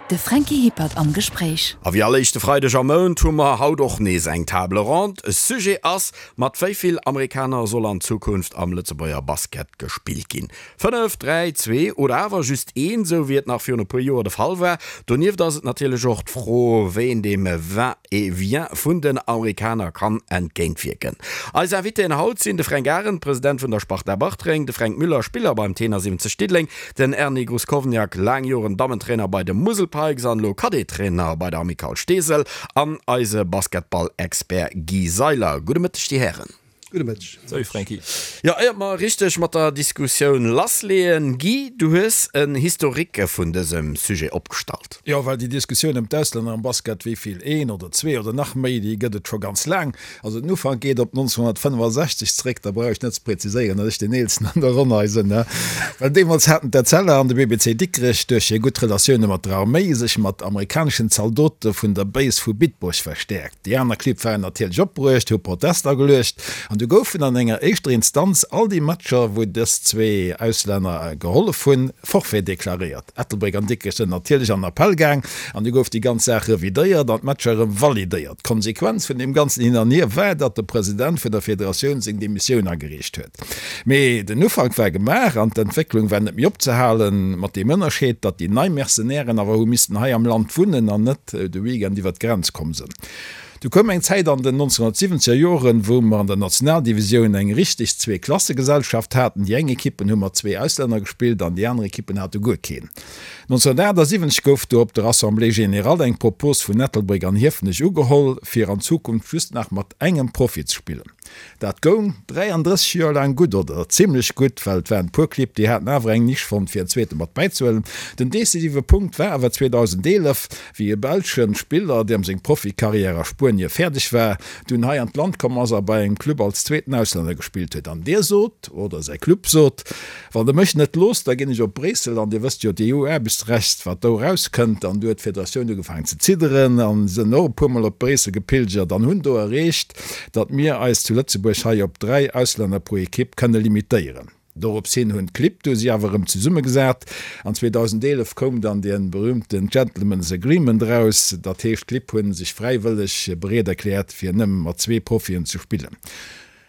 De Franky Hippert am Gespréich. A wéi all éischte Freideg am Mount hu mer haut och nees eng Table ronde. Sujet ass, Mat wéi vill Amerikaner soll an Zukunft am Lëtzebuerger Basket gespillt ginn? 5, 3, 2 oder awer just een, sou wéi et nach virun e puer Joer de Fall war? Donieft ass et natierlech och d'Fro, wéi een deem Va-et-vient vun den Amerikaner kann entgéintwierken. Eis Invitéen haut sinn de Fränk Arendt, President vun der Sparta Bartreng, de Fränk Müller, Spiller beim Tenor 70 Diddeleng, Den Erny Gruskovniak, laang Joren Dammentrainer bei de Musel Pikes an elo Cadet-Trainer bei der Amicale Steesel, an eise Basketball-Expert Guy Seiler. Gudde Mëtteg, dir Hären. Gudde Mëtteg. Salut Franky. Jo, éiert mer richteg mat der Diskussioun lassleeën, Guy, du hues en Historique vun dësem Sujet opgestallt. Jo, well déi Diskussioun ëm d'Auslänner am Basket, wéi vill, een oder zwee oder nach méi, déi gëtt et scho ganz laang. Also den Ufank geet op 1965 zréck, da brauch ech net ze präziséieren, datt ech deen Eelsten an der Ronn hei sinn, ne? Well deemools haten d'Etzella an de BBC Dikrech duerch hir gutt Relatioune mat der Arméi sech mat amerikaneschen Zaldote vun der Base vu Bitburg verstäerkt. Déi aner Clibb waren natierlech opbruecht, hu Protest ageluecht an du goufen an enger éischter Instanz all déi Matcher, wou dës zwee Auslänner gehollef hunn, Forfait deklaréiert. Ettelbréck an Dikrech sënn natierlech an Appell gaang an du gouf déi ganz Saach revidéiert an d'Matcher erëm validéiert. D'Konsequenz vun deem ganzen Hin an Hier war, datt de President vun der Federatioun seng Demissioun agereecht huet. Mee den Ufank war gemaach an d'Entwécklung war net méi opzehalen, mat deem Ënnerscheed, datt déi nei Mercenairen awer hu missten hei am Land wunnen an net de Weekend iwwer d'Grenz komm sënn. Du koum eng Zäit an den 1970er Joren, wou mer an der Nationaldivisioun eng richteg Zweeklassegesellschaft haten. Déi eng Ekippen hu mat zwee Auslänner gespillt an déi aner Ekippen hate guer keen. 1978 gouf du op der Assemblée générale eng Propos vun Ettelbréck an Hiefenech ugeholl, fir an Zukunft just nach mat engem Profi ze spillen. Dat goung 33 Joer laang gutt, oder zimlech gutt, well et waren e puer Clibb, déi haten awer eng Nisch fonnt, fir en zweete mat bäizehuelen. Den decisive Punkt war awer 2011, wéi e belsche Spiller, deem seng Profikarriär a Spuenie fäerdeg war, dunn hei an d'Land komm ass a bei engem Club als zweeten Auslänner gespillt huet. An dee sot, oder säi Club sot, Wann Der mech net loosst, da ginn ech op Bréissel. An Dir wësst jo, d'EU-Aarbechtsrecht, wat do erauskënnt. An du huet d'Federatioun ugefaangen ze zidderen a sënn och e puermol op Bréissel gepilgert an hunn do erreecht, datt mir eis zu Lëtzebuerg hei op 3 Auslänner pro Ekipp kënne limitéieren. Dorops hin hunn d'Clibb du si awer erëm zesummegesat an 2011 koum dann dee berühmten Gentlemen's Agreement eraus. Dat heescht, d'Clibb hu sech fräiwëlleg bereet erkläert, fir nëmme mat zwee Profien ze spillen.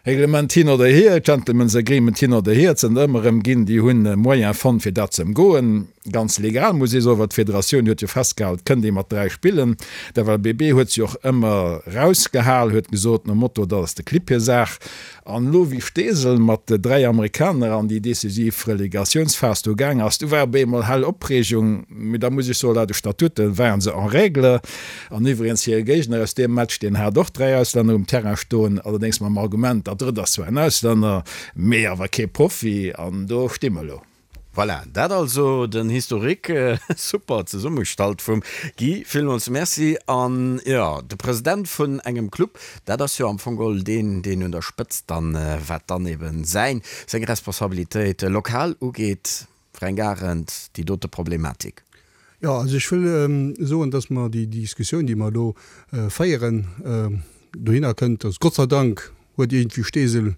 Reglement hin oder hier, Gentlemen's Agreement hin oder hier, et sënn der ëmmer erëm ginn, déi hunn e Moyen fonnt, fir dat ze ëmgoen. Ganz legal, muss ee soen, well d'Federatioun huet jo festgehal, et kënnt ee mat 3 spillen. D'FLBB huet se och ëmmer rausgehal, huet gesot nom Motto, dat ass de Clibb hir Saach. An elo wéi Steesel mat 3 Amerikaner an déi decisiv Relegatiounsphas do gaang ass, du war op eemol hell Opreegung. Mee da muss ech soen, laut de Statute waren se en règle. An iwwregens hire Géigner aus deem Match, deen hat och 3 Auslänner um Terrain stoen, allerdéngs mam Argument, dat drëtt ass zwar en Auslänner, mee awer kee Profi. An do sti mer elo. Voilà, dat also den Historique, super zesummegestallt vum Guy, villmools Merci. An jo, de President vun engem Club, dat ass jo am Fong geholl deen, deen un der Spëtzt dann, wat dann eben säin, seng Responsabilitéit lokal ugeet, Fränk Arendt, déi dote Problematik. Jo, also ech wëll soen, dass mer déi Diskussioun, déi mer elo féieren, dohinner kënnt, dass Gott sei Dank huet iergendwéi Steesel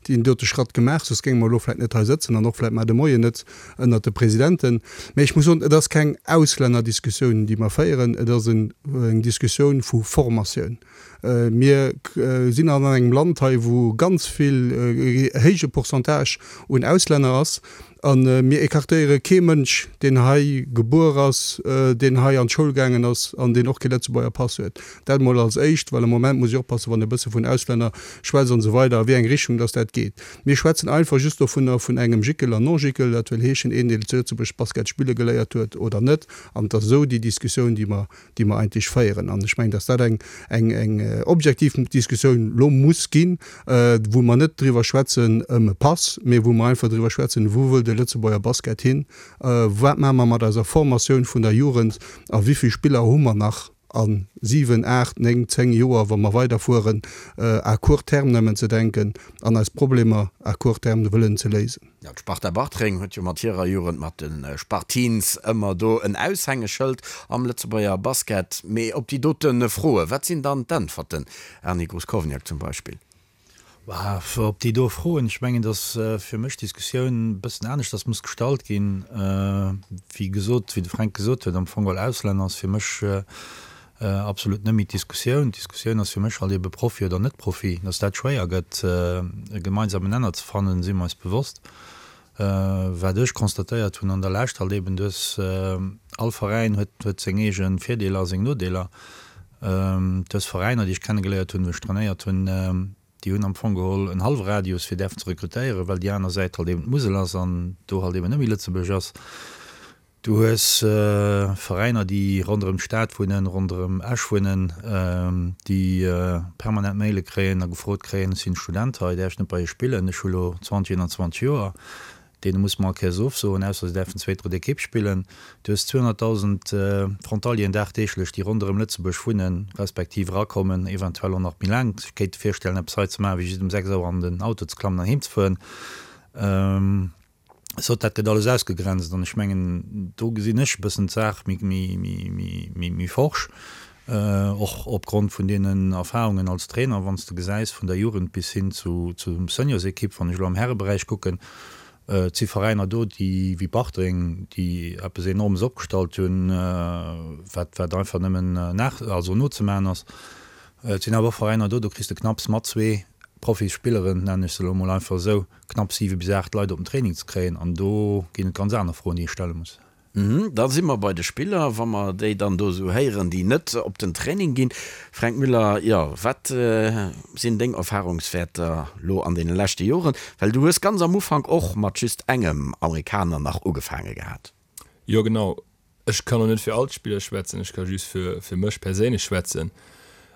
deen dote Schratt gemaach, soss géinge mer elo vläicht net hei sëtzen an och vläicht mar de Moien net ënnert de Presidenten. Mä ech muss soen, et ass keng Auslännerdiskussioun, déi mer féieren, et ass eng Diskussioun vu Formatioun. Mir sinn an engem Land hei, wou ganz vill, e héije Pourcentage un Auslänner ass. A mir écartéiere kee Mënsch, deen hei gebuer ass, deen hei an d'Schoul gaangen ass an deen och kee Lëtzebuerger Pass huet. Dat emol als éischt, well am Moment muss ech oppassen, wann e bësse vun Auslänner schwätzt an esou weider, a wéi eng Richtung dass dat geet. Mir schwätzen einfach just dovunner, vun engem Jickel an Non-Jickel, dat wëll heeschen, een, deen zu Lëtzebuerg Basket spille geléiert huet oder net. An et ass esou déi Diskussioun, déi mer déi mer eigentlech féieren. An ech mengen, dass dat eng, eng, eng objektiv Diskussioun elo muss ginn, wou mer net driwwer schwätzen ëm e Pass, mee wou mer einfach driwwer schwätzen, wou wëll de Lëtzebuerger Basket hin, wat maache mer mat eiser Formatioun vun der Jugend a wéi vill Spiller hu mer nach a 7, 8, 9, 10 Joer, wa mer weiderfueren à court terme nëmmen ze denken an eis Problemer à court terme wëllen ze léisen. Jo, d'Sparta Bartreng huet jo mat hirer Jugend, mat de Sparteens, ëmmer do en Aushängeschëld am Lëtzebuerger Basket. Mee op déi dote Froe, wat sinn dann d'Äntwerten? Erny Gruskovniak zum Beispill. Op déi do Froen, ech mengen, datt fir mech d'Diskussioun e bëssen aneschters muss gestallt ginn. Wéi gesot, wéi de Fränk gesot huet, am Fong geholl Auslänner ass fir mech absolut net méi d'Diskussioun. D'Diskussioun ass fir mech halt ebe Profi oder net Profi. Datt dat schwéier gëtt, e gemeinsamen Nenner ze fannen, si mer eis bewosst. Wat ech constatéiert hunn an der Lescht halt eben, du hues, all Veräin huet, huet seng eege Virdeeler a seng Nodeeler. Du hues Veräiner, déi ech kennegeléiert hunn, wou ech trainéiert hunn, déi hunn am Fong geholl en hallwe Radius fir däerfen ze rekrutéieren, well déi aner Säit halt eben d'Musel ass an do halt eben net méi Lëtzebuerg ass. Du hues Veräiner, déi ronderëm d'Stad wunnen, ronderëm Esch wunnen, déi permanent Maile kréien a gefrot kréien, ech sinn Student hei, däerf ech net bei iech spillen, ech hu lo 20, 21 Joer. Deene muss mer all Kéiers ofsoen, ausser se däerfen zweet, drëtt Ekipp spillen. Du hues 200.000 Frontalieren dagdeeglech, déi ronderëm Lëtzebuerg wunnen, respektiv erakommen, eventuell och nach méi laang sech kéinte virstellen, eppes hei ze maachen, wéi just um 6 Auer an den Auto ze klammen an heem ze fueren. Sot, dat gëtt alles ausgegrenzt an ech mengen, do gesinn ech e bëssen d'Saach méi forsch, och opgrond vun deenen Erfahrungen als Trainer, wann s de gesäis vun der Jugend bis hin zu zum Seniorsekipp, wann ech elo am Häreberäich kucken, et si Veräiner do, déi wéi Bartreng, déi eppes Enormes opgestallt hunn, wat wat einfach nëmmen nach also nozemaachen ass. Et sinn awer och Veräiner do, do kriss de knapps mat zwee Profisspilleren, nennen ech se elo emol einfach esou, knapp 7 bis 8 Leit op den Training ze kréien an do ginn et ganz aner Froen, déi ee stelle muss. Da si mer bei de Spiller, wa mer déi dann do esou héieren, déi net op den Training ginn. Fränk Müller, jo, wat sinn deng Erfahrungswäerter lo an deene leschte Joren? Well du hues ganz am Ufank och mat just engem Amerikaner nach ugefaange gehat. Jo genau, Ech kann lo net fir all d'Spiller schwätzen, ech ka just fir fir mech perséinlech schwätzen.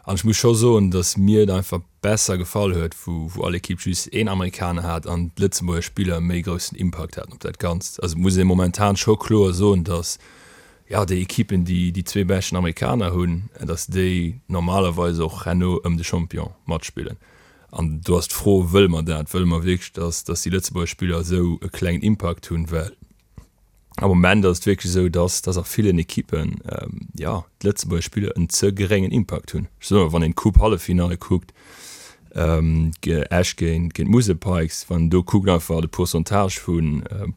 An ech muss scho soen, datt mir et einfach besser gefall huet, wou wou all Ekipp just een Amerikaner hat an d'Lëtzebuerger Spiller méi groussen Impakt haten op dat Ganzt. Also et muss ee momentan scho kloer soen, datt jo déi Ekippen, déi déi zwee beschten Amerikaner hunn, datt déi normalerweis och herno ëm de Champion matspillen. An do ass d'Fro, wëlle mer dat? Wëlle mer wierklech, datt datt déi Lëtzebuerger Spiller esou e klengen Impakt hunn? Well Am Moment ass et wierklech esou, dass, dass a villen Ekippen, jo, d'Lëtzebuerger Spiller en ze geréngen Impakt hunn. Ech soen, wann een d'Coupe-Halleffinalle kuckt, Esch géint, géint d'Musel Pikes, wann een do kuckt einfach de Pourcentage vu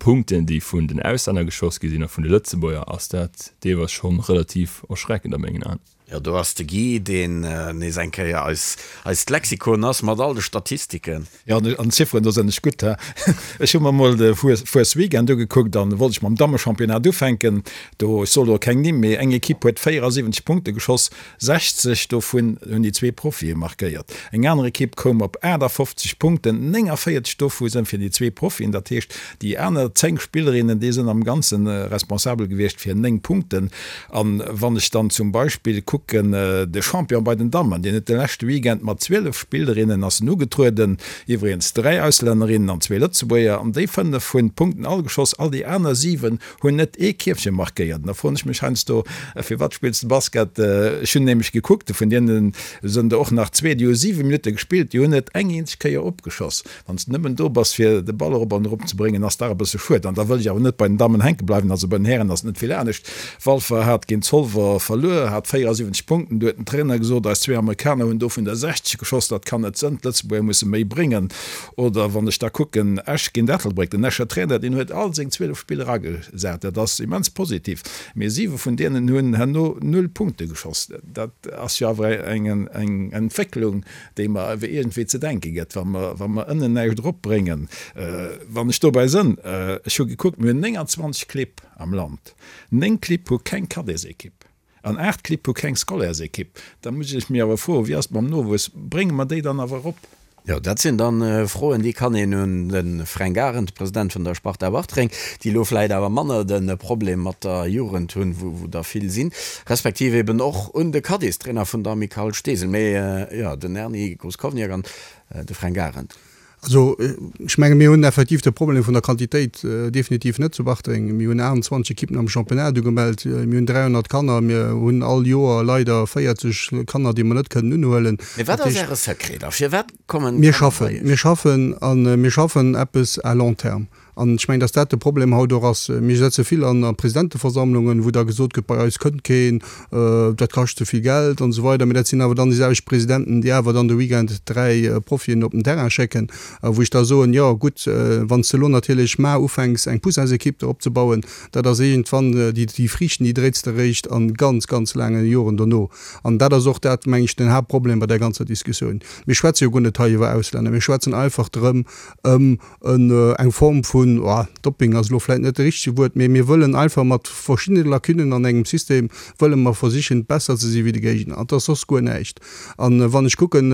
Punkten, déi vun den Auslänner geschoss gi sinn a vun de Lëtzebuerger, ass dat deelweis schonn relativ erschreckend a mengen Aen. Jo, do ass de Guy, deen nees eng Kéier eis, eist Lexikon ass mat all de Statistiken. Jo, an Zifferen, do sinn ech gutt, he. Ech hu mer mol de Fuesweekend ugekuckt an wollt ech mam Dammechampionnat ufänken. Do, ech soe lo keng Nimm, mee eng Ekipp huet 74 Punkte geschoss, 60 dovun hunn déi zwee Profie markéiert. Eng aner Ekipp koum op 58 Punkten, 49 dovu sinn fir déi zwee Profien. Dat heescht, déi aner 10 Spillerinnen, déi sinn am Ganze responsabel gewiescht fir 9 Punkten. An wann ech dann zum Beispill kucken, de Champion bei den Dammen, deen huet de leschte Weekend mat 12 Spillerinnen ass en ugetrueden, iwwregens 3 Auslännerinnen an zwee Lëtzebuerger, an déi 5 hunn d'Punkten all geschoss, all déi aner 7 hunn net ee Kierfche markéiert. An da froen ech mech heiansdo, Firwat spills de Basket? Ech hunn nämlech gekuckt, vun deene sënn der och nach zwee, déi hu 7 Minutte gespillt, déi hunn net eng eenzeg Kéier opgeschoss. Wann s de nëmmen do bass fir de Ball erop an erop ze bréngen, ass dach e bësse schued. An da wëll ech awer net bei den Dammen hänke bleiwen. Also bei den Hären ass et net vill anescht. Walfer hat géint Zolwer verluer, hat 74 Punkten. Do huet den Trainer gesot, eis zwee Amerikaner hunn dovun der 60 geschoss, dat kann net sënn, d'Lëtzebuerger musse méi bréngen. Oder wann ech da kucken, Esch géint Ettelbréck, den Escher Trainer, deen huet all seng 12 Spiller agesat, dat ass immens positiv, mee siwe vun deenen hunn herno null Punkte geschoss. Dat ass jo awer eng Entwécklung, déi mer awer iergendwéi ze denke gëtt, wa mer, wa mer ënnen näischt eropbréngen. Wann ech dobäi sënn, ech hu gekuckt, mir hunn 29 Clibb am Land, 9 Clibb hu keng Cadetsekipp an 8 Clibb hu keng Scolairesekipp. Da muss ech mir awer froen, wéi ass et mam Nowuess, brénge mer déi dann awer erop? Jo, dat sinn dann Froen, déi kann een un de Fränk Arendt, President vun der Sparta Bartreng, déi elo vläit awer manner de Problem mat der Jugend hunn, wou der vill sinn, respektiv eben och un de Cadestrainer vun der Amicale Steesel, mee jo, den Erny Gruskovniak an de Fränk Arendt. Also, ech menge mir hunn effektiv de Problem vun der Quantitéit definitiv net zu Bartreng. Mir hunn 28 Ekippen am Championnat ugemellt, mir hunn 300 Kanner, mir hunn all Joer leider 40 Kanner, déi mer net kënnen unhuelen. Mee wat ass Äre Secret da? Firwat kommen Mir schaffen, mir schaffen a mir schaffen eppes à long terme. An ech mengen, dass dat de Problem haut och ass. Mir setze vill an a Presidenteversammlungen, wou da gesot gëtt, bei eis kënnt keen, dat kascht ze vill Geld an esou weider. Mee dat sinn awer dann déi selwecht Presidenten, déi awer dann de Weekend 3 Profien op den Terrain schécken, wou ech da soen, jo gutt, wann s de elo natierlech mar ufänks eng Poussinsequipe do opzebauen, dat ass iergendwann, déi déi Friichten, déi dréits de eréischt a ganz, ganz laange Joren dono. An dat ass och dat, meng ech, den Haaptproblem bei där ganzer Diskussioun. Mir schwätze jo guer net hei iwwer Auslänner, mir schwätzen einfach drëm ëm eng Form vun, oh, Dopping ass elo vläit net de richtege Wuert, mee mir wëllen einfach mat verschiddene Lacunnen an engem System wëlle mer versichen, besser ze si wéi de Géigner. An et ass soss guer näischt. A wann ech kucken,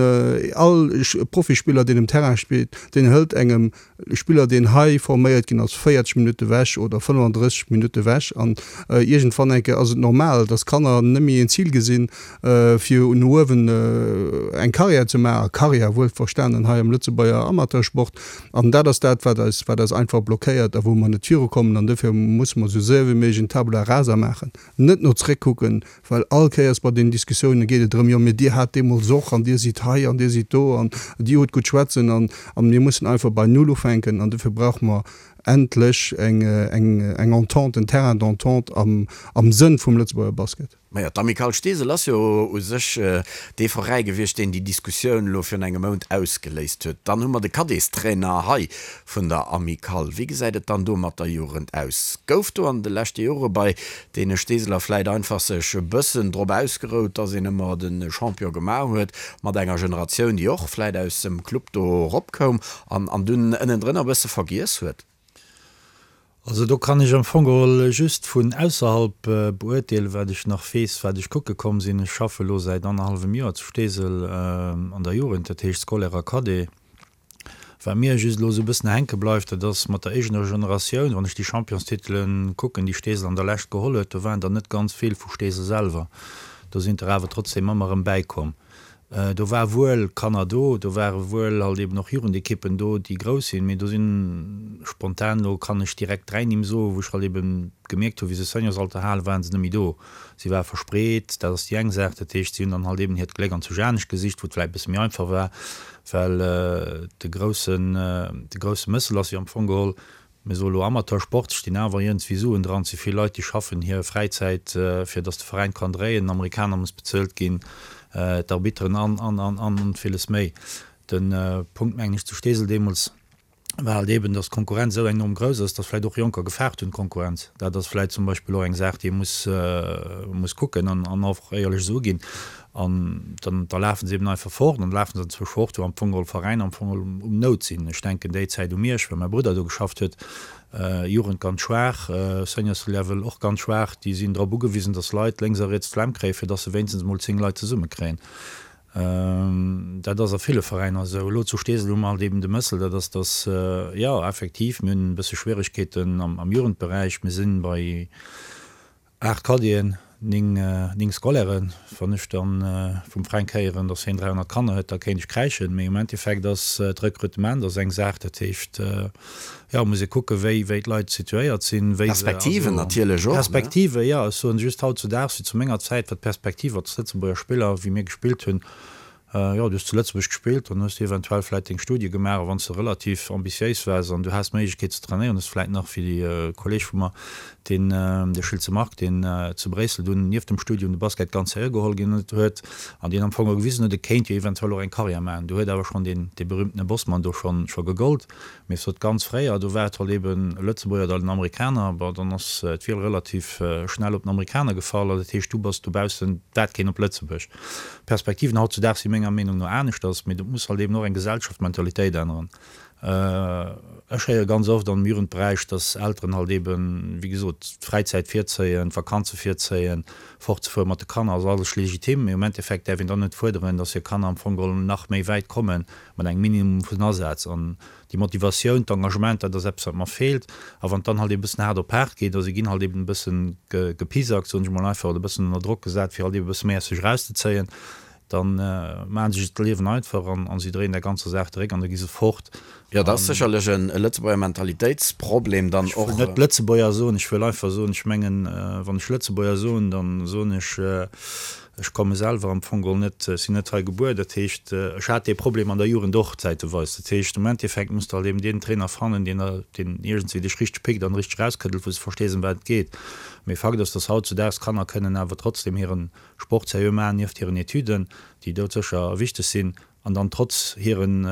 all Profispiller, deen um Terrain spillt, deen hëlt engem Spiller, deen hei forméiert ginn ass, 40 Minutte wech oder 35 Minutte wech. An iergendwann eng Kéier ass et normal, dass Kanner net méi en Zil gesinn, fir no uewen eng Karriär ze maachen, Karriär wuel verstanen hei am Lëtzebuerger Amateursport. An dat ass dat, wat eis, wat eis einfach blockéiert a wou mer net virukommen. An dofir musse mer esou séier wéi méiglech en Tabula rasa maachen, net no zréckkucken, well all Kéiers bei deenen Diskussiounen geet et drëm, jo mee dir hat deemools och an dir sidd hei an dir sidd do an dir hutt gutt schwätzen an mir mussen einfach bei Null ufänken. An dofir brauche mer endlech eng, eng, eng Entente, en Terrain d'entente am, am Sënn vum Lëtzebuerger Basket. Majo, d'Amicale Steesel ass jo u sech dee Veräi gewiescht, deen déi Diskussioun elo virun engem Mount ausgeléist huet. Dann hu mer de Cadettstrainer hei vun der Amicale. Wéi gesäit et dann do mat der Jugend aus? Gouf do an de leschte Jore bei deene Steeseler vläit einfach sech e bëssen drop ausgerout, dass een ëmmer de Champion gemaach huet mat enger Generatioun, déi och vläit aus dem Club do eropkoum an dunn ënnendrënner e bësse vergiess huet? Also do kann ech am Fong geholl just vun ausserhalb beurteelen, wat ech nach weess, wat ech kucke komm sinn. Ech schaffe elo säit annerhallwem Joer zu Steesel an der Jugend, dat heescht Scolaire a Cadet. Wat mir just elo esou e bëssen hänke bleift, dat ass mat der éigener Generatioun, wann ech déi Championstitele kucken, déi Steesel an der Lescht geholl huet, do waren der net ganz vill vu Steesel selwer. Do sinn der awer trotzdeem ëmmer erëm bäikomm. Do war wuel Kanner do, do ware wuel halt eben och Jugendekippen do, déi grouss sinn, mee do sinn spontan, elo kann ech direkt 3 Nimm soen, wou ech halt eben gemierkt hunn, wéi se Seniorsalter halen, waren se net méi do. Si ware verspreet, dat ass déi eng Saach. Dat heescht, si hunn dann halt eben hiert Gléck an zu Janesch gesicht, wou et vläicht e bësse méi einfach war, well de groussen, de grousse Mëssel ass jo am Fong geholl, Mir soe lo Amateursport, stinn awer iergendswéi Suen dran. Et si vill Leit, déi schaffen hir Fräizäit, fir datt de Veräin kann dréien. Den Amerikaner muss bezuelt ginn, d'Arbitteren an, an, an, an villes méi. De Punkt, mengen ech, zu Steesel deemools war halt eeben, datt d'Konkurrenz esou enorm grouss ass, datt vläicht och Jonker gefaart hunn, d'Konkurrenz. Dat ass vläicht zum Beispill och eng Saach, déi ee muss, muss kucken an, an och éierlech esou uginn. An dann, da lafe se eben einfach fort an da lafe se anzwousch fort, wou am Fong geholl Veräiner am Fong geholl um Nout sinn. Ech denken déi Zäit u Miersch, well mäi Brudder do geschafft huet, Jugend ganz schwaach, Seniors Level och ganz schwaach. Déi sinn drop ugewisen, datt Leit lénks a riets d'Flemm kréien, fir datt se wéinstens emol 10 Leit zesummekréien. Dat ass a ville Veräiner esou. Elo zu Steesel hu mer halt eben de Mëssel, dat ass, datt, jo, effektiv, mir hunn e bësse Schwieregkeeten am Jugendberäich. Mir sinn bei 8 Cadeten, 9 Scolairen. Wann ech dann vum Fränk héieren, dass hien 300 Kanner huet, da kéint ech kräischen. Mee um Endeffekt ass d'Rekrutement ass eng Saach. Dat heescht, jo, muss ee kucken, wéi wéi d'Leit situéiert sinn, wéi se, Perspektiven also natierlech och, ne? Perspektive, jo. Ech soen just, hautzudaags, wéi zu menger Zäit war d'Perspektiv als Lëtzebuerger Spiller, wéi mir gespillt hunn, Jo, du hues zu Lëtzebuerg gespillt, dann hues du eventuell vläit deng Studie gemaach a wann s de relativ ambitiéis waars an du has d'Méiglechkeet ze trainéieren, hues vläit nach, wéi e Kolleeg vu mer, deen, de Schiltze Marc, deen zu Bréissel dunn nieft dem Studium de Basket ganz seriö geholl ginn huet an deen am Fong och gewisen huet, e kéint jo eventuell och eng Karriär maachen. Do huet awer schonn deen, dee berühmtene Bosman do schonn, scho gegollt. Mee sot ganz fréier, do war et halt eben e Lëtzebuerger oder en Amerikaner, bon dann ass d'Wiel relativ schnell op den Amerikaner gefall, also dat heescht du bass dobaussen, dat keen op Lëtzebuerg. D'Perspektiven hautzudaags si menger Meenung no aneschters, mee do muss halt eben och eng Gesellschaft d'Mentalitéit änneren. Ech héiere ganz oft am Jugendberäich, dass Elteren halt eben, wéi gesot, d'Fräizäit virzéien, d'Vakanze virzéien, fortzefuere mat de Kanner ass alles legitim, mee um Endeffekt däerf een dann net fuerderen, dass hir Kanner am Fong geholl nach méi wäit kommen, mat engem Minimum vun Asaz. An déi Motivatioun, d'Engagement, dat ass eppes, wat mer feelt. A wann et dann halt eben e bëssen haart op haart geet, a si ginn halt eben e bësse gepisackt, soen ech emol einfach, oder e bëssen ënner Drock gesat, fir halt eben e bësse méi aus sech erauszezéien, da maache se sech d'Liewen einfach an a si dréien der ganzer Saach de Réck an da gi se fort. Jo, dat ass sécherlech e Lëtzebuerger Mentalitéitsproblem dann och. Ech wëll net Lëtzebuerger soen, ech wëll einfach soen, ech mengen, wann ech Lëtzebuerger soen, da soen ech. Ech komme selwer am Fong geholl net, ech sinn net hei gebuer, dat heescht, ech hat dee Problem an der Jugend och zäiteweis. Dat heescht, am Endeffekt muss de halt eben deen Trainer fannen, deen der, deen iergendswéi dech richteg pickt an richteg erauskëddelt, wou s de verstees, ëm wat et geet. Mee Fakt ass, dass hautzudaags Kanner kënnen awer trotzdem hire Sport seriö maachen, nieft hiren Etüden, déi doudsécher wichteg sinn. An dann trotz hiren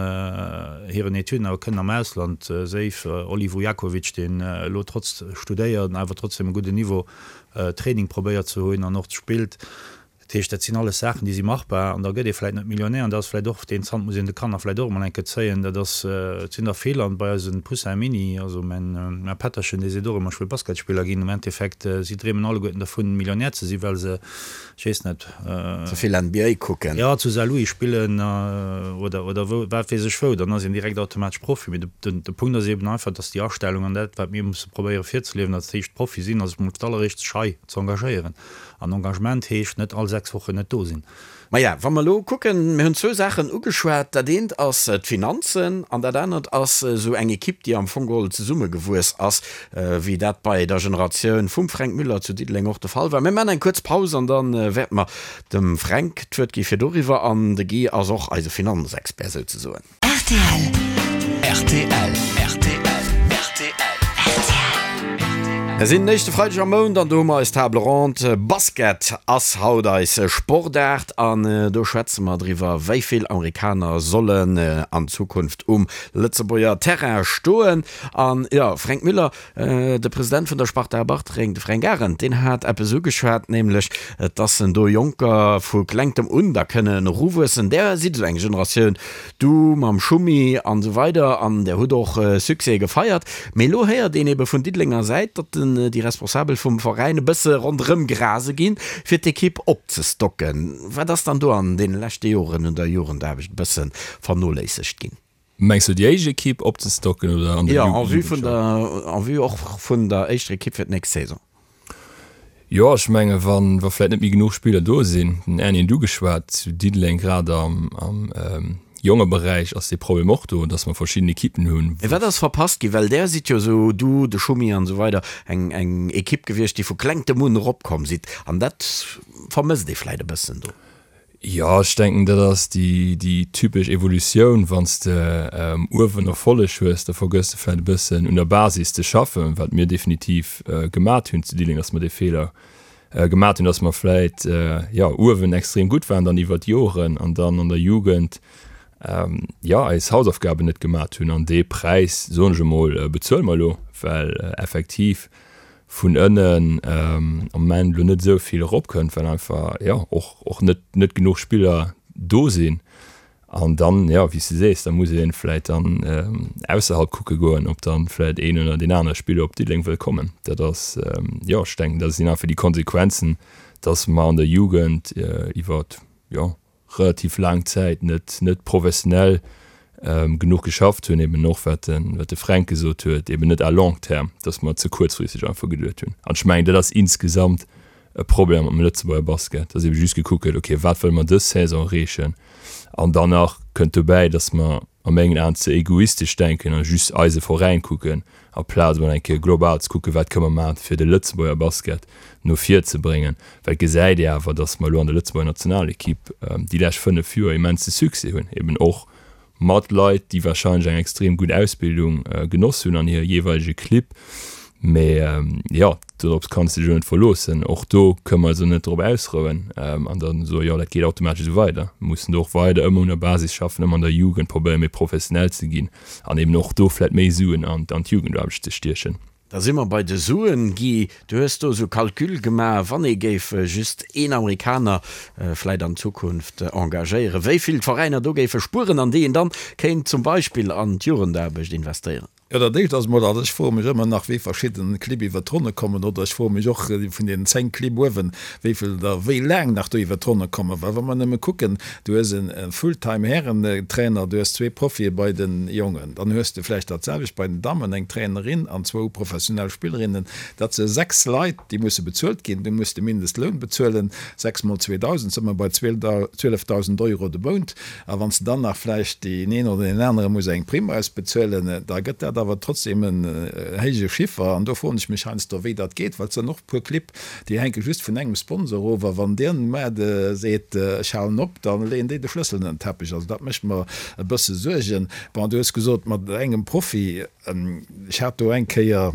hiren Etüden awer kënnen am Ausland, séif Oli Vujakovic, deen elo trotz studéiert awer trotzdem e gudden Niveau Training probéiert ze hunn an och spillt. Dat heescht, dat sinn alles Saachen, déi si machbar an da gëtt ee vläit net Millionär an dat ass vläit och, deen Zant muss een de Kanner vläit och emol eng Kéier zéien. Dat ass, et sinn der vill an bei eise Poussin Mini, also mäin mäi Pätterchen, dee seet och ëmmer, ech wëll Basketspiller ginn. Am Endeffekt, si dreemen alleguerten dervun, Millionär ze sinn, well se, Ech weess net. Ze vill NBA kucken. Jo, zu Saarlouis spillen oder oder wou, wat weess ech wou, dann ass een direkt automatesch Profi. Mee de de Punkt ass eben einfach, dass déi Astellung an dat, wat mir musse probéiere virzeliewen, dat heescht Profi sinn, ass emol d'alleréischt sech hei ze engagéieren. An Engagement heescht net all 6 Wochen net do sinn. Maja, wa mer elo kucken, mir hunn zwou Saachen ugeschwat. Dat eent ass d'Finanzen an dat anert ass esou eng Ekipp, déi am Fong geholl zesummegewuess ass, wéi dat bei der Generatioun vum Fränk Müller zu Diddeleng och de Fall war. Mir maachen eng kuerz Paus an da wäerte mer dem Fränk d'Wuert gi fir doriwwer. An de Guy ass och eise Finanzexpert souzesoen. Rtl. Rtl. Rtl. Rtl. Mir sinn den éischte Freideg am Mount an do hu mer eis Table ronde. Basket ass haut eis Sportaart an do schwätze mer driwwer, wéi vill Amerikaner sollen an Zukunft um Lëtzebuerger Terrain stoen. An jo, Fränk Müller, De President vun der Sparta Bartreng, de Fränk Arendt, deen hat eppes ugeschwat, nämlech dass en do Jonker vu klengtem un da kënnen eruwuessen. Där sidd esou eng Generatioun, du mam Schummi an esou weider, an där hutt och Succèse gefeiert. Mee elo héiert een ebe vun Diddelenger Säit, datt déi Responsabel vum Veräin e bësse ronderëm grase ginn, fir d'Ekipp opzestocken. Wat ass dann do an deene leschte Joren un der Jugendaarbecht e bësse vernoléissegt ginn? Mengs du déi éischt Ekipp opzestocken oder an der Jo, en vue vun der, en vue och vun der éischter Ekipp fir d'nächst Saison. Jo, ech menge wann, wa vläit net méi genuch Spiller do sinn, den Erny huet ugeschwat, zu Diddeleng grad am, am Jongeberäich ass dee Problem och do, datt mer verschidden Ekippen hunn, Mee wat ass verpasst ginn? Well där sidd jo esou, du, de Schumi an esou weider, eng, eng Ekipp gewiescht, déi vu klengtem un eropkomm sidd. An dat vermësst ee vläit e bëssen do. Jo, ech denken, dat ass déi, déi typesch Evolutioun. Wann s de uewen Erfolleg hues, da vergëss de vläicht e bëssen un der Basis ze schaffen, wat mir definitiv gemat hunn zu Diddeleng, dass mer dee Feeler gemat hunn, dass mer vläicht, jo, uewen extrem gutt waren dann iwwert d'Joren an dann an der Jugend, jo, eis Hausaufgaben net gemat hunn. An dee Präis, soen ech emol, bezuele mer elo, well effektiv vun ënnen am Moment elo net esou vill eropkënnt, well einfach jo och och net net genuch Spiller do sinn. An dann, jo, wéi s de sees, da muss ee vläicht dann ausserhalb kucke goen, ob dann vläicht een oder deen anere Spiller op Diddeleng wëll kommen. Dat ass, jo, ech denken, dat sinn einfach déi Konsequenzen, datt mer an der Jugend iwwer, jo, relativ laang Zäit net net professionell genuch geschafft hunn, eben och wat de wat de Fränk gesot huet, eben net à long terme, datt mer ze kuerzfristeg einfach geduet hunn. An ech mengen, dat ass insgesamt e Problem am Lëtzebuerger Basket, datt ebe just gekuckt gëtt, okay, wat wëlle mer dës Saison erreechen? An dann nach kënnt dobäi, datt mer a mengen Aen ze egoistesch denken a just eise Veräin kucken, aplaz emol eng Kéier global ze kucken, wat kënne mer maachen, fir de Lëtzebuerger Basket no vir ze bréngen. Well et gesäit ee awer, datt mer elo an der Lëtzebuerger Nationalekipp déi lescht 5 Joer immense Succès hunn, eben och mat Leit, déi warscheinlech eng extrem gutt Ausbildung genoss hunn an hire jeeweilege Clibb. Mee jo, dorops kanns de dech elo net verloossen. Och do kënne mer eis elo net drop ausrouen an da soen, jo dat geet automatesch esou weider. Mir mussen do och weider ëmmer un der Basis schaffen, ëmmer an der Jugend probéieren méi professionell ze ginn an eben och do vläicht méi Suen an d'Jugendaarbecht ze stiechen. Da si mer bei de Suen. Guy, du hues do esou Calcule gemaach, wann ee géif just een Amerikaner vläicht an Zukunft engagéieren, wéi vill d'Veräiner do géife spueren an déi een dann kéint zum Beispill an d'Jugendaarbecht investéieren. Jo, dat éischt ass emol, also ech froe mech ëmmer nach, wéi verschidden Clibb iwwert d'Ronne kommen, oder ech froe mech och vun deenen 10 Clibb uewen, wéi vill der wéi laang nach do iwwert d'Ronne kommen. Well wa mer nëmme kucken, du hues e Fulltime Härentrainer, du hues zwee Profie bei de Jongen, dann hues de vläicht dat selwecht bei den Dammen, eng Trainerin an zwou professionell Spillerinnen, dat se 6 Leit, déi musse bezuelt ginn, du muss de Mindestloun bezuelen, 6 mol 2.000, si mer bei 12.000 Euro de Mount. A wann s de dann nach vläicht deen een oder deen anere muss eng Primm ausbezuelen, da gëtt dat. awer trotzdem en héije Chiffer. An do froen ech mech heiansdo, wéi dat geet, well et sinn och e puer Clibb, déi hänke just vun engem Sponsor of. A wann deen muer seet, ech halen op, da leeën déi de Schlëssel ënner den Teppech. Also dat mécht mer e bësse Suergen. Bon, du hues gesot, mat engem Profi. Ech hat do eng Kéier,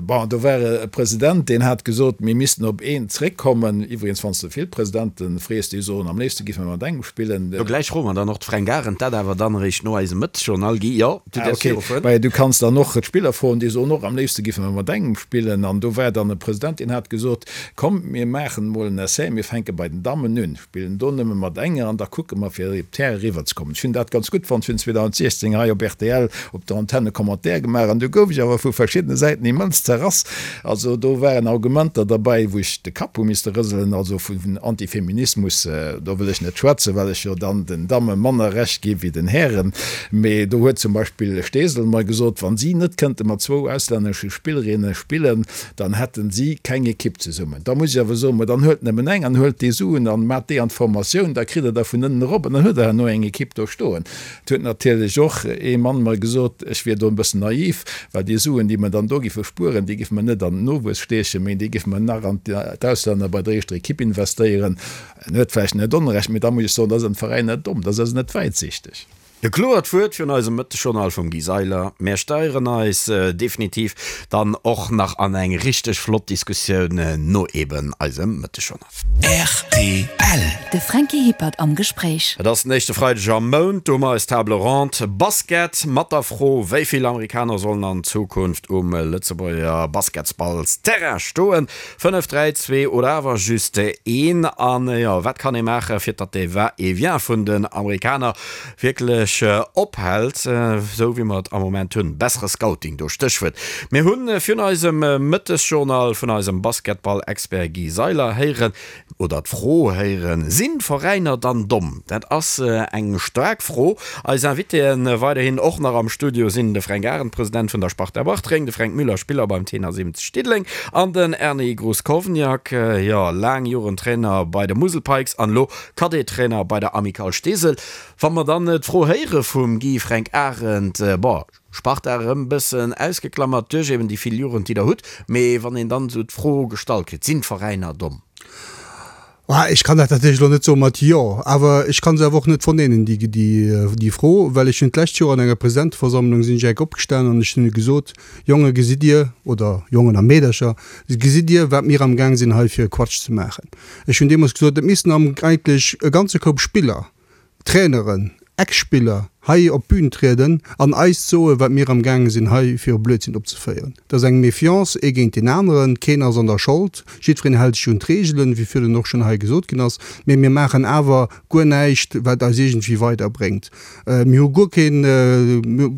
bon, do war e President, deen hat gesot, mir missten op een zréckkommen. Iwwregens, wann s de vill Presidente frees, déi soen, am léifste géife mer mat engem spillen. Do gläich froe mer dann och d'Fränk Arendt dat awer dann eréischt no eisem Mëttesjournal. Guy, jo, du däerfs virufueren. Mä du kanns dann och d'Spiller froen, déi soen och, am léifste géife mer mat engem spillen. An do war dann e President, deen hat gesot, komm, mir maachen emol en Essai, mir fänke bei den Dammen un. Spillen do nëmme mat enger an da kucke mer fir op d'Häre eriwwer ze kommen. Ech hunn dat ganz gutt fonnt. Ech hunn 2016 hei op rtl op der Antenne e Commentaire gemaach an du gouf ech awer vu verschiddene Säiten immens zerrass. Also do waren Argumenter derbäi, wou ech de Kapp hu misste rëselen. Also vun Antifeminismus, do wëll ech net schwätzen, well ech jo dann den Damme manner Recht gi wéi den Hären. Mee do huet zum Beispill Steesel mer gesot, wann si net kënnte mat zwou auslännesche Spillerinne spillen, dann hätten si keng Ekipp zesummen. Da muss ech awer soen, ma dann huelt nëmmen eng an huelt déi Suen an maacht déi an d'Formatioun, da kritt Der der vun ënnen erop an dann hutt Der herno eng Ekipp do stoen. Et huet natierlech och ee Mann mer gesot, ech wier do e bëssen naiv, well déi Suen, déi mer dann do giffe spueren, déi giffe mer net an den Nowuess stiechen, mee déi giffe mer nach an d'Auslänner bei der éischter Ekipp investéieren. En huet vläicht net Onrecht, mee da muss ech soen, da sinn d'Veräiner domm, da si se net wäitsichteg. E kloert Wuert virun eisem Mëttegjournal vum Guy Seiler. Mär steieren eis definitiv dann och nach an eng richteg flott Diskussioun no eben eisem Mëttegjournal. Rtl. De Franky Hippert am Gespréich. Et ass den éischte Freideg am Mount, do hu mer eis Table Ronde Basket mat der Fro, wéi vill Amerikaner sollen an Zukunft um Lëtzebuerger Basketsballsterrain stoen? 5, 3, 2 oder awer just een? An jo, wat kann ee maachen, fir datt dee Va-et-vient vun den Amerikaner wierklech ophält, esou wéi mer et am Moment hunn? Bessere Scouting, do Stéchwuert. Mir hu virun eisem Mëttesjournal vun eisem Basketball-Expert Guy Seiler héieren, oder d'Fro héieren, Sinn d'Veräiner dann domm? Dat ass eng staark Fro. Eis Invitéen weiderhin och nach am Studio sinn de Fränk Arendt, President vun der Sparta Bartreng, de Fränk Müller, Spiller beim Tenor 70 Diddeleng an den Erny Gruskovniak, jo laang Joren Trainer bei de Musel Pikes an elo Cadet-Trainer bei der Amicale Steesel. Wa mer dann d'Fro héiere vum Guy Fränk Arendt, bon, Sparta erëm bëssen ausgeklammert duerch eben déi vill Jugend, déi der hutt. Mee wann een dann esou d'Fro gestallt kritt, Sinn d'Veräiner domm? Ech kann dat natierlech elo net soe mat Jo, awer ech ka se awer och net verneinen, déi Fro, well ech hunn d'lescht Joer an enger Presidenteversammlung sinn ech enk opgestanen an ech hunn gesot, Jonge gesitt Dir, oder Jongen a Meedercher, gesitt Dir, wat mir amgaang sinn hei fir e Quatsch ze maachen. Ech hunn deemools gesot, et missten eigentlech e ganze Koup Spiller, Traineren, Ex-Spiller hei op d'Bün trieden an eis soen, wat mir am gaange sinn hei fir e Blödsinn opzeféieren. Et ass eng Méfiance ee géint deen aneren, keen ass an der Schold, jiddwereen hält sech un d'Reegelen, wéi virun och schonn hei gesot ginn ass, mee mir maachen awer guer näischt, wat eis iergendwéi weiderbréngt. Mir hu guer keen,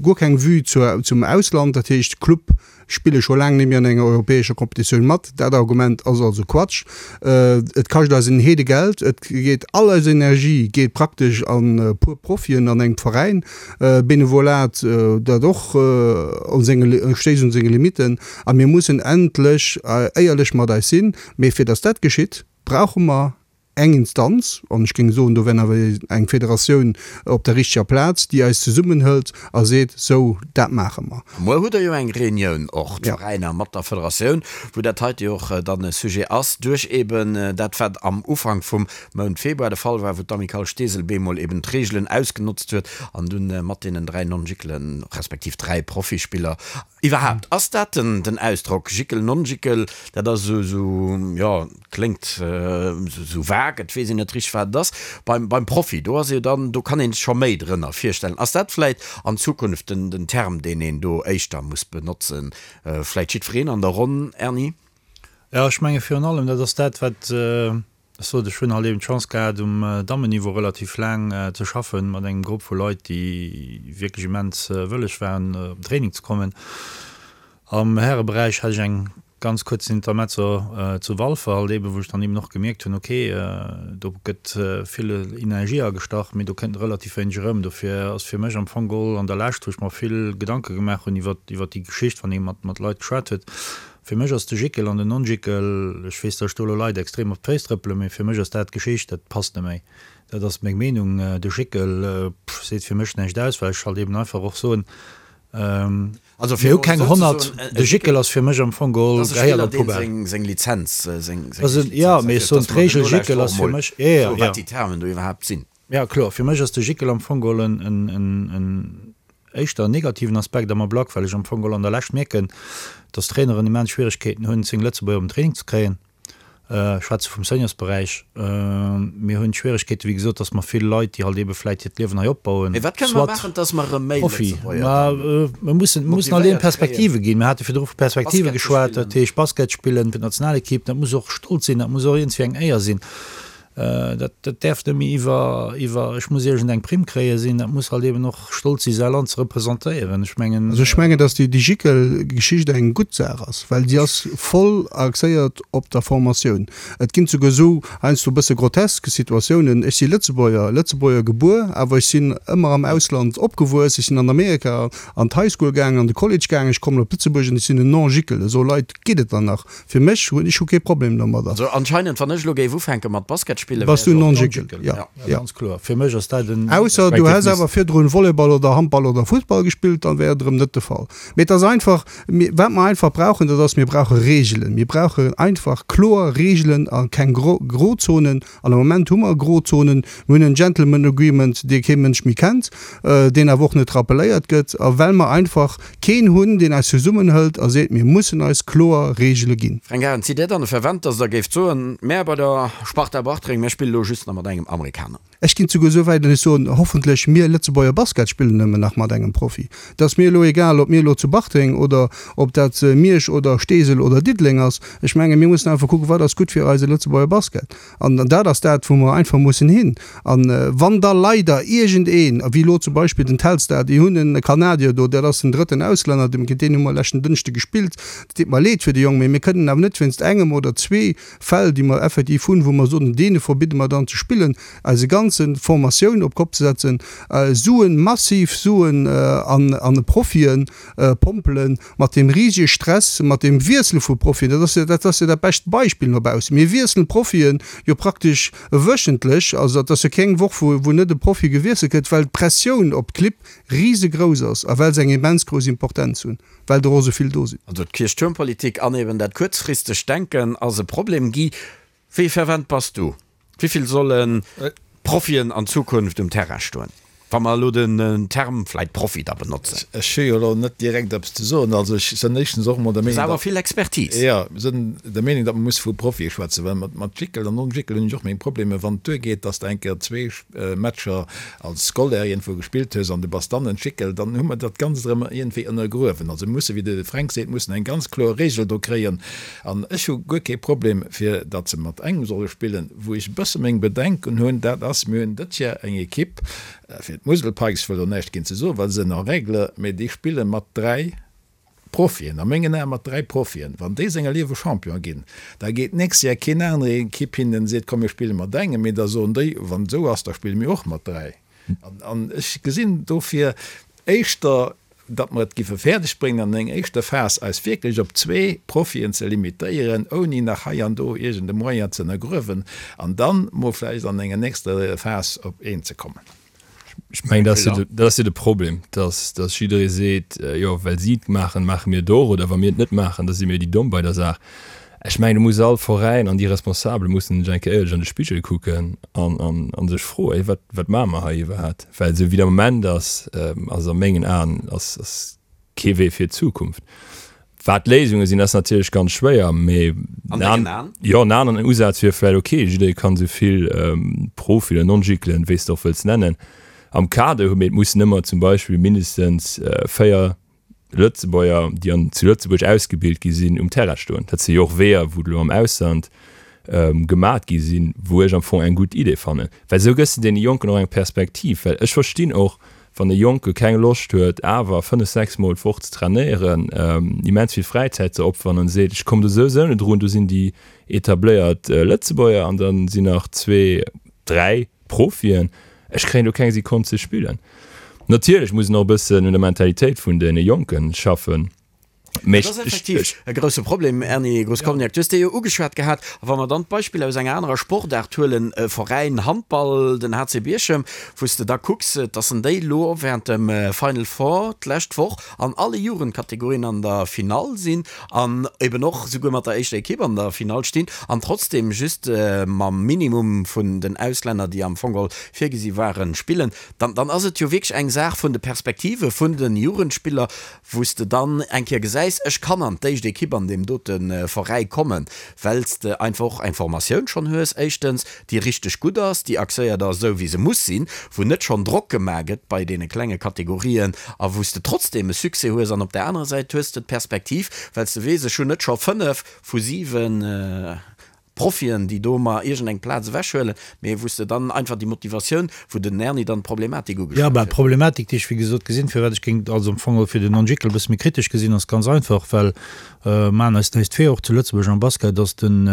guer keng Vue zur, zum Ausland, dat heescht Club spille scho laang net méi an enger europäescher Kompetitioun mat. Dat Argument ass also Quatsch. Et kascht eis en Heedegeld, et geet all eis Energie geet praktesch an e puer Profien an engem Veräin. Benevolat, dat och un senge, stéisst un senge Limitten. A mir mussen endlech éierlech mat eis sinn. Mee fir datt dat geschitt, brauche mer eng Instanz, an ech géing soen, do wär awer eng Federatioun op der richteger Plaz, déi eis zesummenhëlt a seet, sou, dat maache mer. Muer hutt Der jo eng Reunioun och, d'Veräiner mat der Federatioun, wou dat heite jo och dann e Sujet ass, duerch eben dat, wat am Ufank vum Mount Februar de Fall war, wou d'Amicale Steesel bemol eben d'Reegelen ausgenotzt huet an dunn mat deenen 3 Non-Jickelen, respektiv 3 Profispiller, Iwwerhaapt, ass dat den Ausdrock Jickel, Non-Jickel, dat ass esou, jo, kléngt esou vague, et weess een net richteg, wat et ass. Beim, beim Profi, do ass jo dann, do kann een sech scho méi drënner virstellen. Ass dat vläit an Zukunft den, den Term, deen een do éischter muss benotzen? Vläit jiddwereen an der Ronn, Erny? Jo, ech menge virun allem, dat ass dat, wat Ech sot, ech hunn halt eben d'Chance gehat, um Dammenniveau relativ laang ze schaffen, mat engem Grupp vu Leit, déi wierklech immens wëlleg waren, op den Training ze kommen. Am Häreberäich hat ech eng ganz kuerz Intermezzo zu Walfer halt eben, wou ech dann eben och gemierkt hunn, okay, do gëtt vill Energie agestach, mee do kënnt relativ wéineg erëm. Dofir ass fir mech am Fong geholl an der Lescht, wou ech mer vill Gedanke gemaach hunn iwwer déi Geschicht, wann ee mat Leit geschwat huet, Fir mech ass de Jickel an den Non-Jickel, ech weess, datt ech do elo Leit extrem op d'Féiss trëppelen, mee fir mech ass dat Geschicht, dat passt net méi. Dat ass meng Meenung. De Jickel, pff, seet fir mech näischt aus, well ech halt eben einfach och soen. Also Mir hu keng 100, de Gickel ass fir mech am Fong geholl, gehéiert an d'Poubelle. Seng Lizenz, seng Also, jo, mee ech soen, d'Regel Gickel ass fir mech, jo, jo, jo. Wat déi Termen do iwwerhaapt sinn. Jo, kloer, fir mech ass de Gickel am Fong geholl en, en, en, en éischter negativen Aspekt am Ablack, well ech am Fong geholl an der Lescht mierken, dass d'Traineren immens Schwieregkeeten hunn, 10 Lëtzebuerger op den Training ze kréien. Ech schwätze vum Seniorsberäich. Mir hunn d'Schwieregkeete wéi gesot, datt mer vill Leit, déi halt eebe vläit hiert Liewen hei opbauen, Mee wat kënne mer soit maachen, datt mer erëm méi Profi. Lëtzebuerger Ma dann mir mussen, mir mussen halt eeben motivéiert kréien, Perspektive ginn. Mir hate virdru vu Perspektive Basket ze geschwat, dat spillen? heescht Basket spillen fir d'Nationalekipp, dat muss och Stolz sinn, dat muss och iergendwéi eng Éier sinn. Dat, dat däerf net méi iwwer, iwwer ech muss iergend eng Primm kréie sinn, dat muss halt eeben och Stolz si säi Land ze representéieren. Ech mengen. Also ech mengen, datt déi Gickel-Geschicht eng gutt Saach ass, well si ass voll axéiert op der Formatioun. Et ginn souguer esou heiansdo e bësse grotesk Situatiounen, Ech si Lëtzebuerger, Lëtzebuerger gebuer, awer ech sinn ëmmer am Ausland opgewuess, ech sinn an Amerika an d'High School gaangen, an de College gaangen, ech kommen op Lëtzebuerg an ech sinn en Non-Gickel. Esou Leit geet et dann nach. Fir mech hunn ech hu kee Problem domadder. Also anscheinend wann ech elo géif ufänke mat Basket spillen, Bass wär du ech och Non-Jickel, ja. Ja, ganz kloer. Fir mech ass dat en. Ausser du häss awer virdrun Volleyball oder Handball oder Fussball gespillt, dann wär et erëm net de Fall. Mee et ass einfach, mir, wat mer einfach brauchen, dat ass, mir brauche Reegelen. Mir brauchen einfach kloer Reegelen a keng Gro, Grozonen. An am Moment hu mer Grozonen. Mir hunn en Gentleman Agreement, dee kee Mënsch méi kennt, deen awer och net rappelléiert gëtt. A well mer einfach keen hunn, deen eis zesummenhëlt a seet, mir mussen eis kloer Reegele ginn. Fränk Arendt, Sidd Dir dann e Fervent, datt Der géift soen, mär bei der Sparta Bartreng, mär spille lo just nach mat engem Amerikaner? Ech ginn souguer esou wäit an ech soen, hoffentlech mir Lëtzebuerger Basket spillen nëmmen nach mat engem Profi. Et ass mir elo egal, ob mir elo zu Bartreng oder ob dat Miersch oder Steesel oder Diddeleng ass. Ech menge mir mussen einfach kucken, wat ass gutt fir eise Lëtzebuerger Basket. An dat ass dat, wou mer einfach mussen hin. A wann da leider iergendeen, wéi elo zum Beispill den Telstar, déi hunn e Kanadier do, dat ass den drëtten Auslänner, géint deen hu mer leschten Dënschde gespillt, et deet mer leed fir de Jong, mee mir kënnen awer net wéinst engem oder zwee Fäll, déi mer effektiv hunn, wou mer soen, deene verbidde mer dann ze spillen, eise ganze Formatioun op d'Kopp ze setzen, Suen, massiv Suen an e Profien pompelen, mat deem risege Stress, mat deem Wiessele vu Profien, dat ass jo, dat ass jo dat bescht Beispill no baussen. Mir wiesselen d'Profien jo praktesch wöchentlech, also dat ass jo keng Woch, wou, wou net e Profi gewiesselt gëtt, well d'Pressioun op d'Clibb risegrouss ass a well se eng immens grouss Importenz hunn, well der och esou vill do sinn. Also d'Kierchtuermpolitik an eben dat kuerzfristegt Denken ass e Problem. Guy, wéi fervent bass du? Wéi vill solle Profien an Zukunft um Terrain stoen, wa mer elo den Term vläit Profi da benotzen? Ech hu jo elo net direkt eppes ze soen. Also ech sënn éischtens och emol der Meenung, datt. Ass awer vill Expertise. Jo, sënn der Meenung, datt mer musse vu Profie schwätzen, well mat Jickel an Non-Jickel hunn ech och meng Problemer. Wann et duergeet, datt s de eng Kéier zwee Matcher als Scolaire iergendwou gespillt hues an du bass dann en Jickel, dann hu mer dat Ganzt erëm iergendwéi ënnergruewen. Also mir musse, wéi de Fränk seet, mussen eng ganz kloer Regel do kréien. An ech hu guer kee Problem, fir datt se mat engem solle spillen. Wou ech e bësse meng Bedenken hunn, dat ass, mir hunn dëtt Jar eng Ekipp, fir d'Musel Pikes, ech wëll do näischt géint se soen, well se sinn en règle, mee déi spille mat 3 Profien, a mengen Ae mat 3 Profien. Wann déi senger Liewe Champion ginn, da geet d'nächst Jar keen anere Ekipp hin an seet, komm mir spille mat engem, mee da soen déi, wann et esou ass, da spille mir och mat 3. An ech gesinn dofir éischter, datt mer et giffe fäerdeg bréngen an enger éischter Phas eis wierklech op zwee Profien ze limitéieren, ouni nach hei an do iergend e Moyen ze ënnergruewen, an dann mol vläicht an enger nächster Phas op een ze kommen. Ech mengen, dat ass jo de, dat ass jo de Problem, datt, datt jidderee seet, jo, well si et maachen, maache mir et och, oder wa mir et net maachen, da si mir déi Domm bei der Saach. Ech mengen, do muss all Veräin an déi Responsabel mussen sech eng Kéier éierlech an de Spigel kucken an, an, an sech froen, Hey, wat, wat maache mer hei iwwerhaapt? Well esou wéi et am Moment ass, ass a mengen Aen ass, ass kee Wee fir d'Zukunft. Wat d'Léisunge sinn, ass natierlech ganz schwéier, mee An dengen Aen? Jo, en aneren Usaz wier vläicht, okay, jidderee kann esou vill Profi oder Non-Giclen, wéi s de och wëlls nennen, am Kader hunn, mee et mussen ëmmer zum Beispill mindestens 4 Lëtzebuerger, déi an zu Lëtzebuerg ausgebilt gi sinn, um Terrain stoen. Dat si jo och Weeër, wou elo am Ausland gemat gi sinn, wou ech am Fong eng gutt Idee fannen. Well esou gëss de deene Jonken och eng Perspektiv. Well ech verstinn och, wann e Jonke keng Loscht huet, awer fënnef, sechs Mol d'Woch ze trainéieren, immens vill Fräizäit ze opferen an seet, ech kommen do souwisou net drun, do sinn déi etabléiert Lëtzebuerger an da sinn nach zwee, dräi, Profien, ech kréien do keng Sekonn ze spillen. Natierlech muss een och e bëssen un der Mentalitéit vun deene Jonken schaffen. Mee Dat ass effektiv e grousse Problem, Erny Groscovniak. Du hues dee jo ugeschwat gehat. A wa mer dann d'Beispill aus enger anerer Sportaart huelen, e Veräin Handball, den HC Bierchem, wou s de da kucks, dass en déi elo während dem Final Four d'lescht Woch an alle Jugendkategorien an der Finall sinn an eben och souguer mat der éischter Ekipp an der Finall stinn an trotzdem just mam Minimum vun den Auslänner, déi am Fong geholl virgesi waren, spillen, dann dann ass et jo wierklech eng Saach vun de Perspektive vun de Jugendspiller, wou s de dann eng Kéier gesäis, ech kann an d'éischt Ekipp an deem dote Veräi kommen, well s de einfach och eng Formatioun schonn hues, éischtens, déi richteg gutt ass, déi axéiert ass esou wéi se muss sinn, wou net schonn Drock gemaach gëtt bei deene klenge Kategorien a wou s de trotzdeem e Succès hues. An op där anerer Säit hues de d'Perspektiv, well s de weess, ech hunn net scho 5 vu 7 Profien, déi do mer iergend eng Plaz ewechhuelen, mee wou s de dann einfach déi Motivatioun, wou den Erny dann d'Problematik Jo, ugeschwat bah, huet. d'Problematik, déi ech wéi gesot gesinn, firwat ech géing also am Fong och fir den Non-Jickel e bësse méi kritesch gesinn, ass ganz einfach, well, maachen eis näischt vir, och zu Lëtzebuerg am Basket ass den,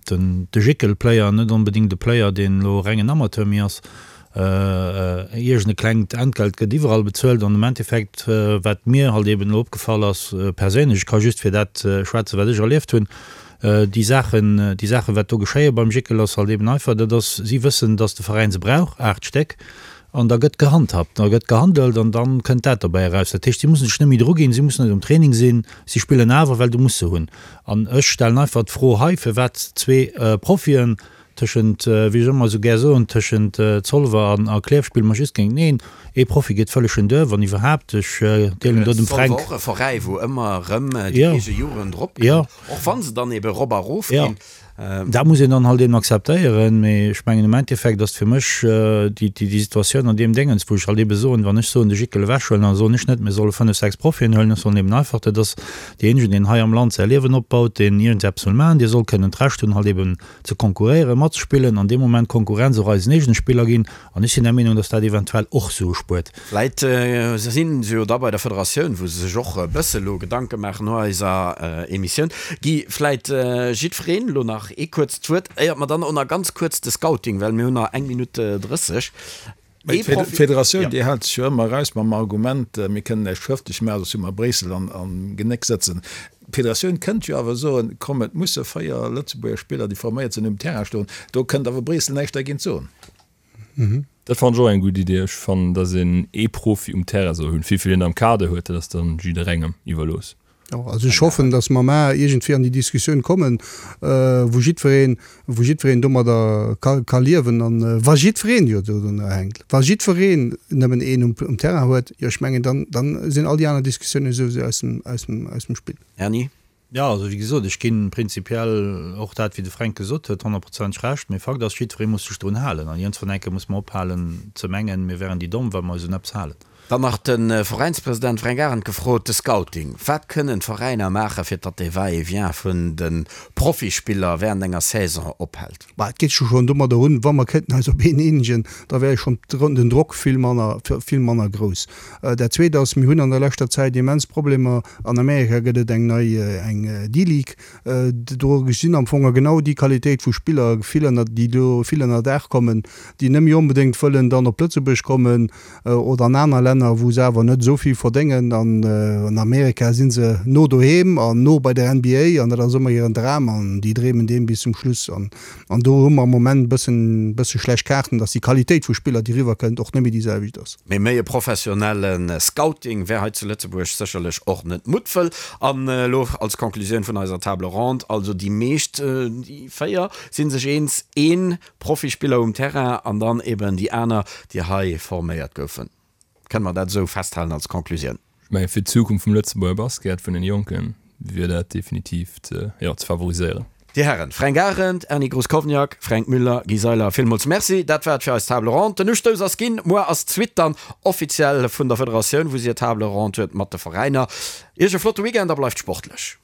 den, de Jickel-Player net onbedéngt e Player, deen elo rengen Amateur méi ass. Iergend e klengt Entgelt gëtt iwwerall bezuelt an am Endeffekt, wat mir halt eben elo opgefall ass, perséinlech, ech ka just fir dat schwätzen, wat ech erlieft hunn, déi Saachen, déi Saachen, wat do geschéie beim Jickel, ass halt eben einfach, dat ass, si wëssen, datt de Veräin se brauch, 8 Stéck, an da gëtt gehandhabt, da gëtt gehandelt an da kënnt dat dobäi eraus. Dat heescht, si mussen sech net méi druginn, si mussen net um Training sinn, si spillen awer, well du muss se hunn. An ech stellen einfach d'Fro hei, firwat zwee Profien Tëschent, wéi ech ëmmer esou gär soen, tëschent Zolwer an a Klierf spille mer just géinteneen. Ee Profi geet vëlleg en duer, wann iwwerhaapt. Ech deelen do dem Fränk. Zolwer och e Veräi, wou ëmmer erëm déi eege Jugend eropkënnt, och wa se dann ebe erop a erof ginn. Dat muss een dann halt eben akzeptéieren. Mee ech mengen, am Endeffekt ass fir mech déi Situatioun an deem Déngens, wou ech halt ebe soen, wann ech soen, de Jickel ewechhuelen, da soen ech net, mir solle fënnef, sechs Profien huelen. Ech soen eben einfach, dat ass deejéinegen, deen hei am Land säi Liewen opbaut, deen iergendeppes wëll maachen, dee soll kënnen d'Recht hunn, halt eben ze konkurréieren, matzespillen an dee Moment Konkurrenz och eisen eegene Spiller ginn. An ech sinn der Meenung, dass dat eventuell och Sue spuert. Vläit si se jo da bei der Federatioun, wou se sech och e bësse lo Gedanke maachen no eiser Emissioun. Guy, vläit jiddwereen elo nach ee kuerzt Wuert, éiert mer dann och nach ganz kuerz de Scouting, well mir hunn nach eng Minutt 30. Mee d'Federatioun, déi hält sech jo ëmmer eraus mam Argument, mir kënnen näischt schrëftlech maachen, soss hu mer Bréissel am Genéck sëtzen. D'Federatioun kënnt jo awer soen, komm et musse 4 Lëtzebuerger Spiller, déi forméiert sinn, um Terrain stoen. Do kënnt awer Bréissel näischt dergéint soen. Dat fannen ech och eng gutt Idee. Ech fannen, datt een ee Profi um Terrain soll hunn. Wéivill een am Kader huet, dat ass dann jidderengem iwwerlooss. Jo, also ech hoffen, datt mer mar iergendwéi an déi Diskussioun kommen, wou jiddwereen, wou jiddwereen domadder ka, ka liewen. An wa jiddwereen jo dodrunner hänkt, wa jiddwereen nëmmen een um, um Terrain huet, jo ech mengen, dann, dann sinn all déi aner Diskussiounen souwisou aus dem, aus dem, aus dem Spill. Erny? Jo, also wéi gesot, ech ginn prinzipiell och dat, wéi de Fränk gesot huet, honnertprozenteg Recht. Mee Fakt ass, jiddweree muss sech drun halen. An iergendwann eng Kéier muss mer ophalen ze mengen, mir wären déi Domm, wa mer eis un eppes halen. Dann nach de Veräinspresident Fränk Arendt gefrot, de Scouting, Wat kënnen d'Veräiner maachen, fir datt dee Va-et-vient vun de Profispiller während enger Saison ophält? Bah, et geet jo schonn domadder un, wa mer kéinten eis op een eenegen, da wär jo schonn den Drock vill manner, vill manner grouss. Dat Zweet ass, mir hunn an der leschter Zäit immens Problemer, an Amerika gëtt et eng nei, eng D-League, Do sinn am Fong genau déi Qualitéit vu Spiller vill ënner, déi do vill ënner Daach kommen, déi net méi onbedéngt wëllen dann op Lëtzebuerg kommen oder an aner Länner, wou se awer net esou vill verdéngen. An an Amerika si se no doheem an no bei der NBA an dat ass ëmmer hiren Dram an déi dreemen deem bis zum Schluss. An an do hu mer am Moment e bëssen, bësse schlecht Kaarten, dass déi Qualitéit vu Spiller, déi eriwwer kënnt, och net méi déi selwecht ass. Mee méi e professionelle Scouting wär hei zu Lëtzebuerg sécherlech och net Muttwëll. An elo als Conclusioun vun eiser Table ronde, also déi meescht, déi 4, si sech eens, ee Profispiller um Terrain an dann eben déi aner, déi hei forméiert goufen. Kënne mer dat esou festhalen als Conclusioun? Ech mengen, fir d'Zukunft vum Lëtzebuerger Basket, vun den Jonken, wier dat definitiv ze, jo, ze favoriséieren. Dir Hären Fränk Arendt, Erny Gruscowniak, Fränk Müller, Guy Seiler, villmools Merci. Dat war et fir eis Table ronde. Den Ustouss ass ginn. Muer ass d'Suite dann offiziell vun der Federatioun, wou si hir Table ronde huet mat de Veräiner. Iech e flotte Weekend a bleift sportlech.